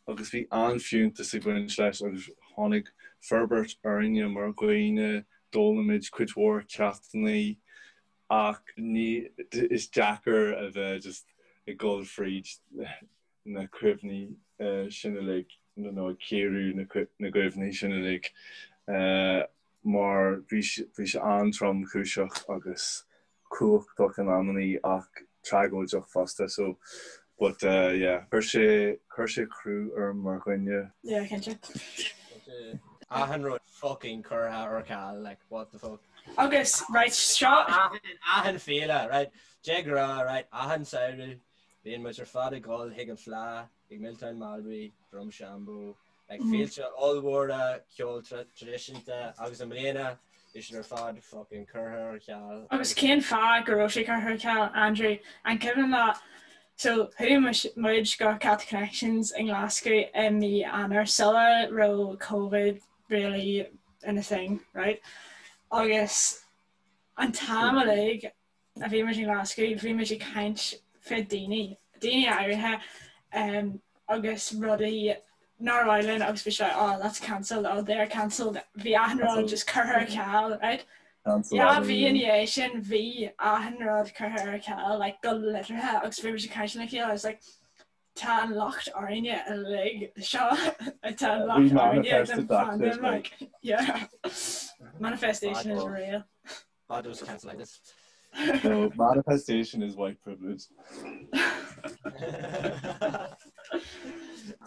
agus bhí an-fhiúntas ag baint leis agus tháinig forbairt orainne mar dhaoine, d'fhoghlaim muid cuid mhór ceachtanna ach ní is deacair a bheith just ag dul fríd na cuimhní sin uilig nó ag cíoradh na gcuimhní sin uilig mar bhí sé an-tromchúiseach agus cumhachtach in amannaí ach tragóideach fosta so but yeah chuir sé chuir sé crú orm mar dhuine. Yeah cinnte. Achan rud fucking curtha ar ceal like what the fuck. Agus right seo Achan féile right de ghnáth right achan samhradh bíonn muid ar fad ag dul chuig an Fleadh ag Milltown Malbay, Drumshanbo, like féilte ollmhóra ceol traidisiúnta agus i mbliana bhí siad ar fad fucking curtha ar ceal. Agus cén fáth go raibh sé curtha ar ceal, Andrew? An cuimhin leat, so chuaigh muid go Celtic Connections i nGlasgow i mí Eanáir sula raibh Covid really ina thing, right? Agus an t-am uilig a bhí muid i nGlasgow, bhí muid ag caint fé daoine, daoine áirithe agus rudaí nár mhaith linn agus bhí sé oh that's cancelled, oh they're cancelled, bhí achan rud just curtha ar ceal, right? Dhá mhí ina dhiaidh sin bhí achan rud curtha ar ceal, like go liteartha agus bhí muid ag caint lena chéile, I was like tá an locht orainne uilig seo, tá an locht orainne den pandemic, yeah. Manifestation is real. Bad was cancelitis. No, manifestation is white privilege.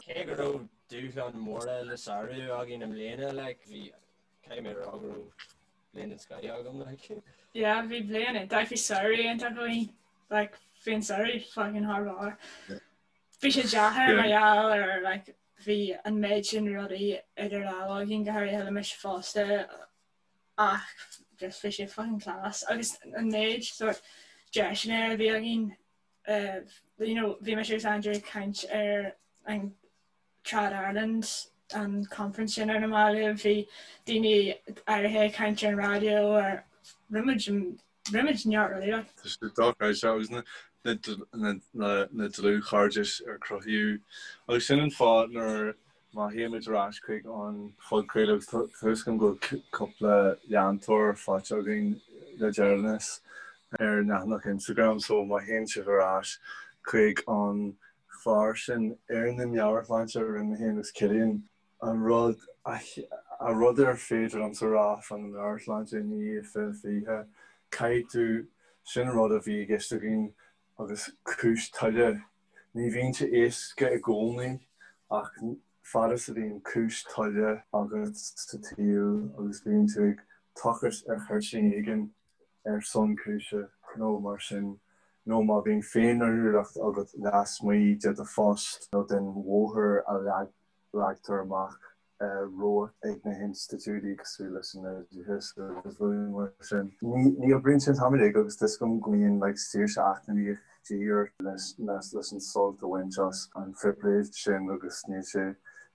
Cé go raibh dúshláin mhóra le sárú againn i mbliana, like, bhí caithfidh mé a rá go raibh bliain den scoth agam, like. Yeah, bhí bliain iontach, bhí samhradh iontach againn, like, bhí an samhradh fucking thar barr. Bhí sé deacair mar gheall ar, like, bhí an méid sin rudaí idir lámha againn, go háirithe le mise fosta, ach just bhí sé fucking class agus an méid sort deiseanna a bhí againn you know bhí mise agus Andrew ag caint ar an Trad Ireland an conference sin ar na mallaibh bhí daoine áirithe ag caint ar an raidió ar rinne muid rinne muid neart rudaí like. Tá sé dochreidte agus na dlúthchairdis ar cruthaíodh agus sin an fáth nuair Má théimid ar ais chuig an phodchraoladh, agus tá fhios agam go bhfuil cúpla leantóir faighte againn le deireanas ar an leathanach Instagram, so má théann sibh ar ais chuig an chlár sin ar na meabhairshláinte a rinne mé féin agus Cillian, an rud an rud ar féidir liomsa a rá fá na meabhairshláinte i ndiaidh 2020, caithfidh tú, sin an rud a bhí i gceist againn agus cúis toile. Ní bhíonn sé éasca i gcónaí ach fad is a bhíonn cúis toile agat sa tsaol agus bíonn tú ag tochairt ar chuirtín éigin ar son cúise nó mar sin, nó má bhíonn féinfhreagracht agat lasmuigh de do phost nó den bhóthar a leagtar amach romhat ag na hinstitiúidí cosúil leis an oideachas agus rudaí mar sin. Ní oibríonn sé an t-am uilig agus tá 'fhios agam go mbíonn like saoirse eacnamaíoch de dhíth ort leis an sult a bhaint as an phribhléid sin agus níl sé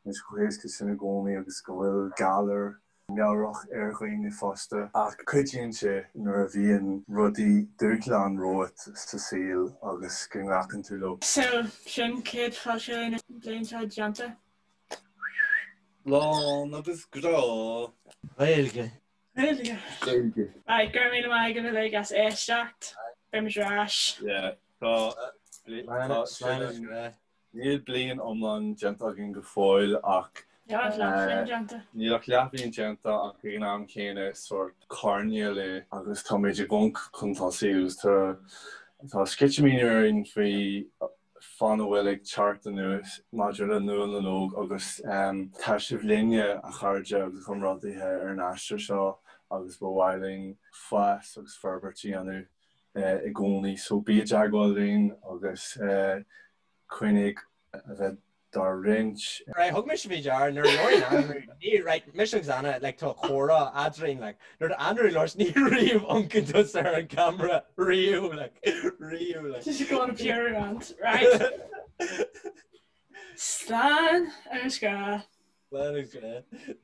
níl sé chomh héasca sin i gcónaí agus go bhfuil galar meabhrach ar dhaoine fosta. Ach cuidíonn sé nuair a bhíonn rudaí, dúshlán romhat sa saol agus go nglacann tú leo. So, sin céad podchraoladh na bliana seo déanta. Lán agus grá. Gaeilge. Gaeilge. Gaeilge. Right, go raibh míle maith agaibh uilig as éisteacht. Beidh muid ar ais. Yeah, tá, tá, sin an, níl bliain iomlán déanta againn go fóill ach Níl ach leathbhliain déanta. Níl ach leathbhliain déanta ach ag an am céanna is sórt coirnéal é agus táimid ag amharc chun tosaigh agus tá tá sceitimíní orainn faoi fán a bhfuil ag teacht anuas maidir le Nuala na nÓg agus tá sibh linne, a chairde agus a chomrádaithe, ar an aistear seo agus ba mhaith linn fás agus forbairt a dhéanamh i gcónaí. So bí i dteagmháil linn agus coinnigh a bheith dár roinnt. Right, thug mise faoi deara nuair a labhraíonn Andrew, ní, right, mise agus Anna, like, tá comhrá eadrainn, like, nuair a Andrew labhairt, ní riamh amharcann tusa ar an camera, riamh, like, riamh, like. Just go on a pure rant, right? Slán agus grá. Slán agus grá.